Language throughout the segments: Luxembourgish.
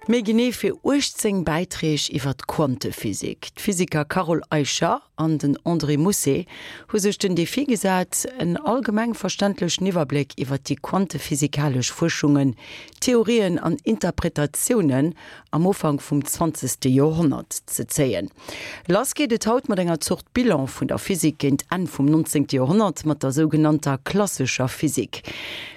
Méi genee fir 18 Bäiträg iwwer d'Quantephysik. D'Physiker Carole Eicher an den André Mousset hu sech den Defi gesat, en allgemeng verständlechen Iwwerbléck iwwer déi quantephysikalesch Fuerschungen, Theorien an Interpretatiounen am Ufank vum zwanzegste Joerhonnert ze zéien. Lass geet et haut mat enger Zort Bilan vun der Physik géint Enn vum 19. Joerhonnert, mat der sougenannter klassescher Physik.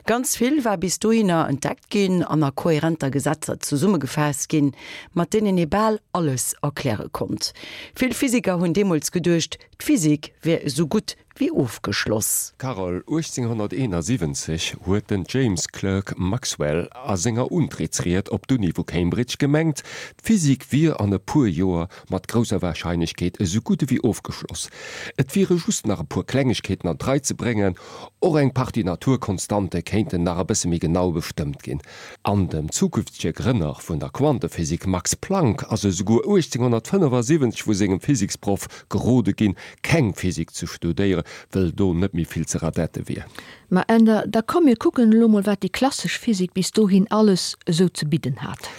Ganz vill war bis dohinner entdeckt ginn an a kohärenter Gesetzer zesummegefaasst ginn, mat deenen ee bal alles erkläre konnt. Vill Physiker hunn deemools geduecht, d'Physik wär esou gutt wéi ofgeschloss. Carole, 1871 huet den James Clerk Maxwell a senger Untrittsried op d'Uni vu Cambridge gemengt, d'Physik wier an e puer Joer mat grousser Warscheinlechkeet esou gutt ewéi ofgeschloss. Et wiere just nach e puer Klengegkeeten an d'Rei ze bréngen, och eng Partie Naturkonstante kéinten nach e bësse méi genau bestëmmt ginn. An dem zukünftege Grënner vun der Quantephysik Max Planck ass esouguer 1875 vu sengem Physiksproff gerode ginn, keng Physik ze studéieren, wëll do net méi vill ze radette wier. Ma Änder, da komm mir kucken elo mol wat déi klassesch Physik bis dohin alles esou ze bidden hat.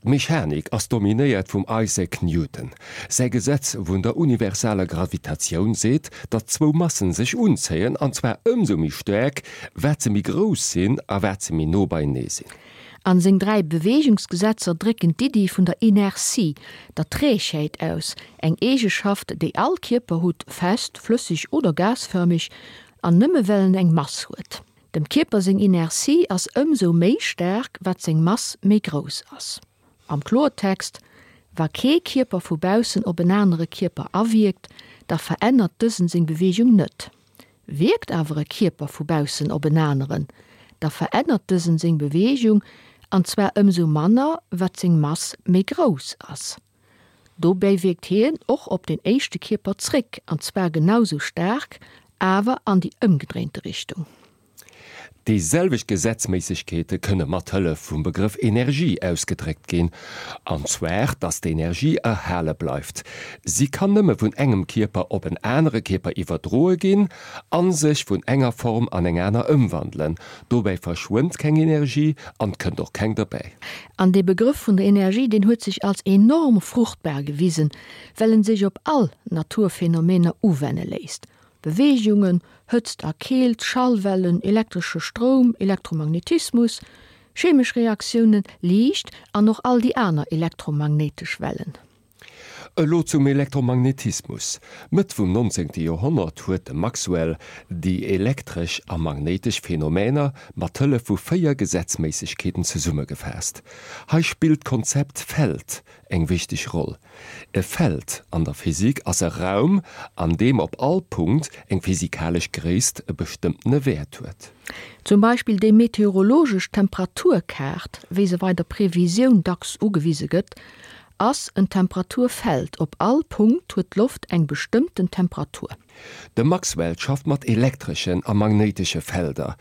D'Mechanik ass dominéiert vum Isaac Newton. Säi Gesetz vun der universaler Gravitatioun seet, datt zwou Massen sech unzéien, an zwar ëmsou méi staark, wat se méi grouss sinn a wat se méi no beienee sinn. An seng 3 Beweegungsgesetzer drécken d'Iddi vun der Inertie, der Trägheet aus, eng Eegeschaft, déi all Kierper hutt, fest, flësseg oder gasfërmeg, an nëmme well en eng Mass huet. Dem Kierper seng Inertie ass ëmsou méi staark, wat seng Mass méi grouss ass. Am Kloertext, Wa kee Kierper vu baussen op en anere Kierper awierkt, da verännert dësen seng Beweegung net. Wierkt awer e Kierper vu baussen op en aneren, da verännert dësen seng Beweegung, an zwar ëmsou manner, wat seng Mass méi grouss ass. Dobäi wierkt hien och op den éischte Kierper zréck, an zwar genau sou staark, awer an déi ëmgedréinte Richtung. Déi selwecht Gesetzméissegkeete kënne mat Hëllef vum Begrëff Energie ausgedréckt ginn, an zwar datt d'Energie erhale bleift. Si kann nëmme vun engem Kierper op en anere Kierper iwwerdroe ginn a sech vun enger Form an eng aner ëmwandelen. Dobäi verschwënnt keng Energie an 't kënnt och keng derbäi. An dee Begrëff vun der Energie, deen huet sech als enorm fruchtbar gewisen, well en sech op all Naturphänomener uwenne léisst. Beweegungen, Hëtzt a Keelt, Schallwellen, elektresche Stroum, Elektromagnetismus, chemesch Reaktiounen, Liicht an och all déi aner elektromagnéitesch Wellen. Elo zum Elektromagnetismus. Mëtt vum 19. Joerhonnert huet de Maxwell déi elektresch a magnéitesch Phänomener mat Hëllef vu 4 Gesetzméissegkeeten zesummegefaasst. Hei spillt d'Konzept Feld eng wichteg Roll. E Feld an der Physik ass e Raum, an deem op all Punkt eng physikalesch Gréisst e bestëmmtene Wäert huet. Zum Beispill déi meteorologesch Temperaturkaart, wéi se bei der Previsioun dacks ugewise gëtt, ass en Temperaturfeld, op all Punkt huet d'Loft eng bestëmmten Temperatur. De Maxwell schafft mat elektreschen a magnéitesche Felder.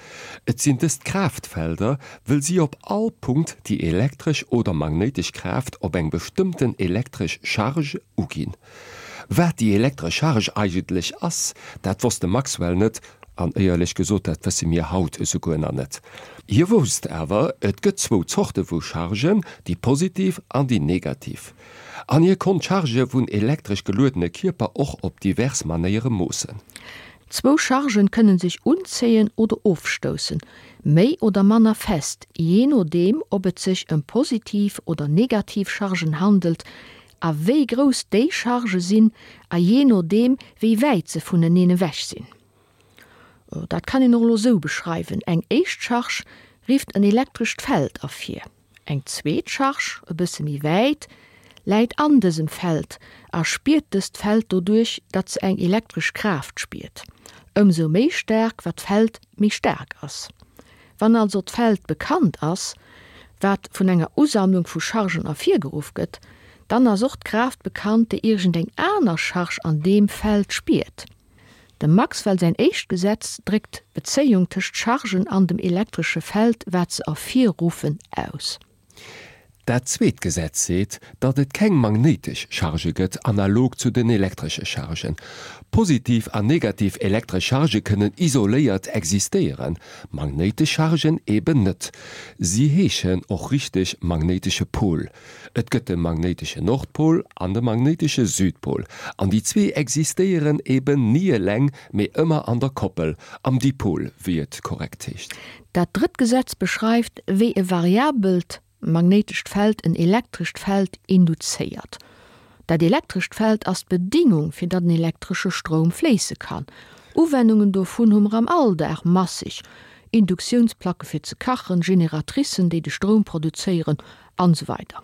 Et sinn dëst Kraaftfelder, wëll si op all Punkt déi elektresch oder magnéitesch Kraaft op eng bestëmmten elektresch Charge uginn. Wat déi elektresch Charge eigentlech ass, dat wosst de Maxwell net, an éierlech gesot, dat wësse mir haut esouguer nach net. Hie wousst awer, et gëtt zwou Zorte vu Chargen, déi positiv an déi negativ. An hie konnt d'Chargë vun elektresch geluedene Kierper och op divers Manéiere moossen. Zwou Chargen kënnen sech unzéien oder ofstoussen, méi oder manner fest, jee nodeem ob et sech ëm positiv oder negativ Chargen handelt a wéi grouss déi Chargë sinn a jee nodeem wéi wäit se vuneneen ewech sinn. Dat kann een och elo sou beschreiwen, Eng éischt Charge rifft en elektrescht Feld ervir. Eng zweet Charge, e bësse méi wäit, läit an dësem Feld a spiert dëst Feld doduerch, datt se eng elektresch Kraaft spiert. Ëmsou méi staark, wat d'Feld méi staark ass. Wann also d'Feld bekannt ass, wat vun enger Usammlung vu Chargen ervirgeruff gëtt, dann ass och d'Kraaft bekannt, déi iergendeng aner Charge an deem Feld spiert. Dem Maxwell säin éischt Gesetz dréckt d'Bezéiung tëscht Chargen an dem elektresche Feld, wat se ervirruffen, aus. Dat zweet Gesetz seet, datt et keng magnéitesch Chargë gëtt, analog zu den elektresche Chargen. Positiv an negativ elektresch Chargë kënnen isoléiert existéieren, magnéitesch Chargen eben net. Si heeschen och richteg magnéitesche Pol. Et gëtt de magnéitesche Nordpol an de magnéitesche Südpol, an déi zwee existéieren eben ni eleng, mee ëmmer an der Koppel, am Dipol, wéi et korrekt heescht. Dat drëtt Gesetz beschreift, wéi e variabelt magnéitescht Feld en elektrescht Feld induzéiert. Dat elektrescht Feld ass d'Bedingung, fir datt en elektresche Stroum fléisse kann. Uwennungen dovun hu mer am Alldag masseg, Induktiounsplacke fir ze kachen, Generatricen, déi de Stroum produzéieren, an esou weider.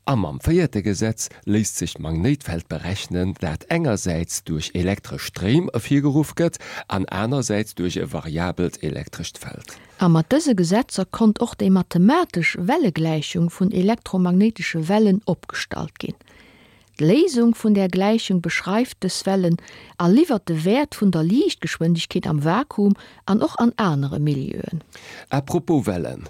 A mam véierte Gesetz léisst sech d'Magnéitfeld berechnen, dat engersäits duerch elektresch Stréim ervirgeruff gëtt an anersäits duerch e variabelt elektrescht Feld. A mat dëse Gesetzer konnt och déi mathematesch Wellegläichung vun elektromagnéitesche Wellen opgestallt ginn. D'Léisung vun där Gläichung beschreift dës Wellen a liwwert de Wäert vun der Liichtgeschwindegkeet am Vakuum an och an anere Milieuen. À propos Wellen,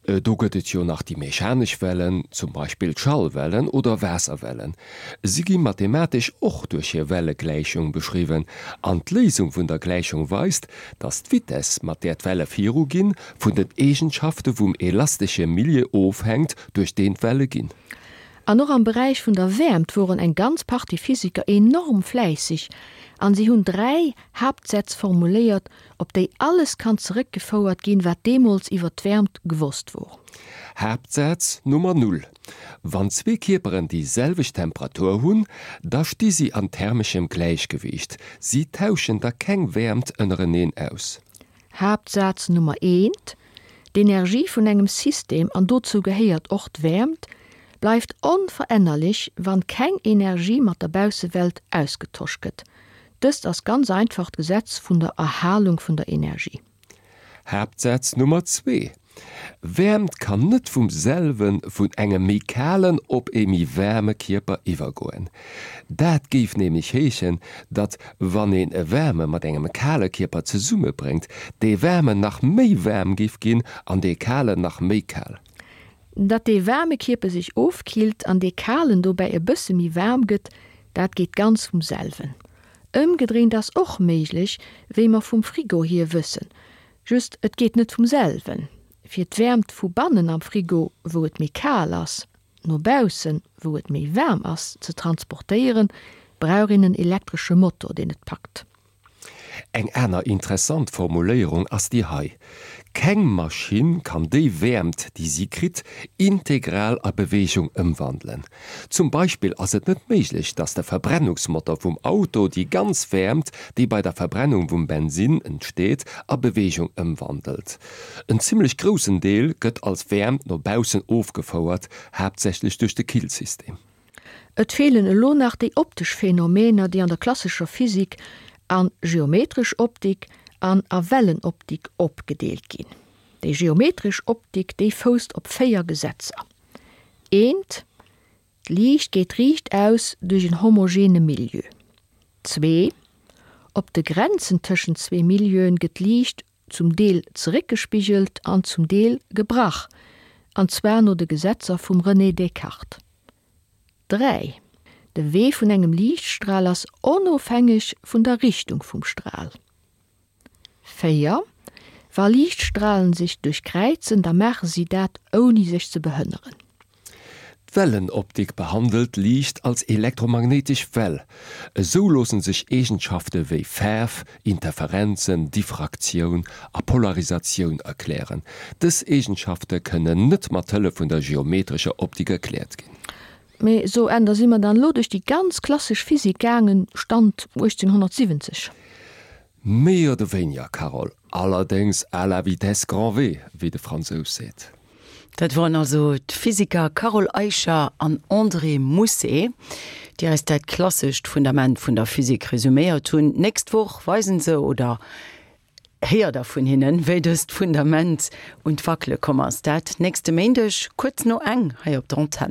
do gëtt et jo nach déi mechanesch Wellen, zum Beispill d'Schallwellen oder Waasserwellen. Si gi mathematesch och duerch hir Wellegläichung beschriwwen an d'Léisung vun der Gläichung weist, datt d'Vitess, mat där d'Welle viruginn, vun den Eegenschafte vum elastesche Milieu ofhänkt, duerch deen d'Welle ginn. An och am Beräich vun der Wäermt woren eng ganz Partie Physiker enorm fläisseg an si hunn 3 Haaptsätz formuléiert, op déi alles kann zeréckgefouert ginn, wat deemools iwwer d'Wäermt gewosst wor. Haaptsaz Nummer null, Wann zwee Kierperen déi selwecht Temperatur hunn, da sti si an thermeschem Gläichgewiicht, si tauschen da keng Wäermt ënnereneen aus. Haaptsaz Nummer eent, D'Energie vun engem System, an dozou gehéiert och d'Wäermt, bleift onverännerlech, wann keng Energie mat der Baussewelt ausgetosch gëtt. Dëst ass ganz einfach d'Gesetz vun der Erhalung vun der Energie. Haaptsaz Nummer zwee, Wäermt kann net vum selwe vun engem méi kalen op ee méi waarme Kierper iwwergoen. Dat géif nämlech heeschen, datt wann een e waarme mat engem kale Kierper zesummebréngt, dee waarmen nach méi waarm géif ginn an dee kalen nach méi kal. Datt dee waarme Kierper sech ofkillt an dee kalen dobäi e bësse méi waarm gëtt, dat geet ganz vum selwen. Ëmgedréint ass och méiglech, wéi mer vum Frigo hier wëssen. Just, et geet net vum selwen. Fir d'Wäermt vu bannen am Frigo, wou et méi kal ass, no baussen, wou et méi waarm ass, ze transportéieren, brauch een en elektresche Motor, deen et packt. Eng aner interessant Formuléierung ass déi hei, Keng Maschinn kann déi Wäermt, déi si kritt, integral a Beweegung ëmwandelen. Zum Beispill ass et net méiglech, dass de Verbrennungsmotor vum Auto déi ganz Wäermt, déi bei der Verbrennung vum Bensinn entsteet, a Beweegung ëmwandelt. En zimmlech groussen Deel gëtt als Wäermt no baussen ofgefouert, haaptsächlech duerch de Killsystem. Et feelen elo nach déi optesch Phänomener, déi an der klassescher Physik a geometresch Optik an a Wellenoptik opgedeelt ginn. Déi geometresch Optik, déi fousst op 4 Gesetzer. Eent, D'Liicht geet riichtaus duerch en homogene Milieu. Zwee, Op de Grenzen tëschent zwee Milieuen gëtt d'Liicht zum Deel zeréckgespigelt an zum Deel gebrach, an zwar no de Gesetzer vum René Descartes. 3, De Wee vun engem Liichtstral ass onofhängeg vun der Richtung vum Stral. 4, Wa Liichtstralen sech duerchkräizen, da maache si dat ouni sech ze behënneren. D'Wellenoptik behandelt Liicht als elektromagnéitesch Well. Esou loosse sech Eegenschafte wéi Faarf, Interferenzen, Diffraktioun a Polarisatioun erklären. Dës Eegenschafte kënnen net mat Hëllef vun der geometrescher Optik erkläert ginn. Mee so, Änder, si mer dann elo duerch déi ganz klassesch Physik gaangen, Stand 1870? Méi oder wéiniger, Carole, allerdéngs à la vitesse grand V, wéi de Fransous seet. Dat woren also d'Physiker Carole Eicher an André Mousset, déi eis dat klassescht Fundament vun der Physik resuméiert hunn. D'nächst Woch weisen se, oder héiert der vun hinnen, wéi dëst Fundament un d'Wackele komm ass. Dat nächste Méindeg kuerz no eng hei op der Antenn.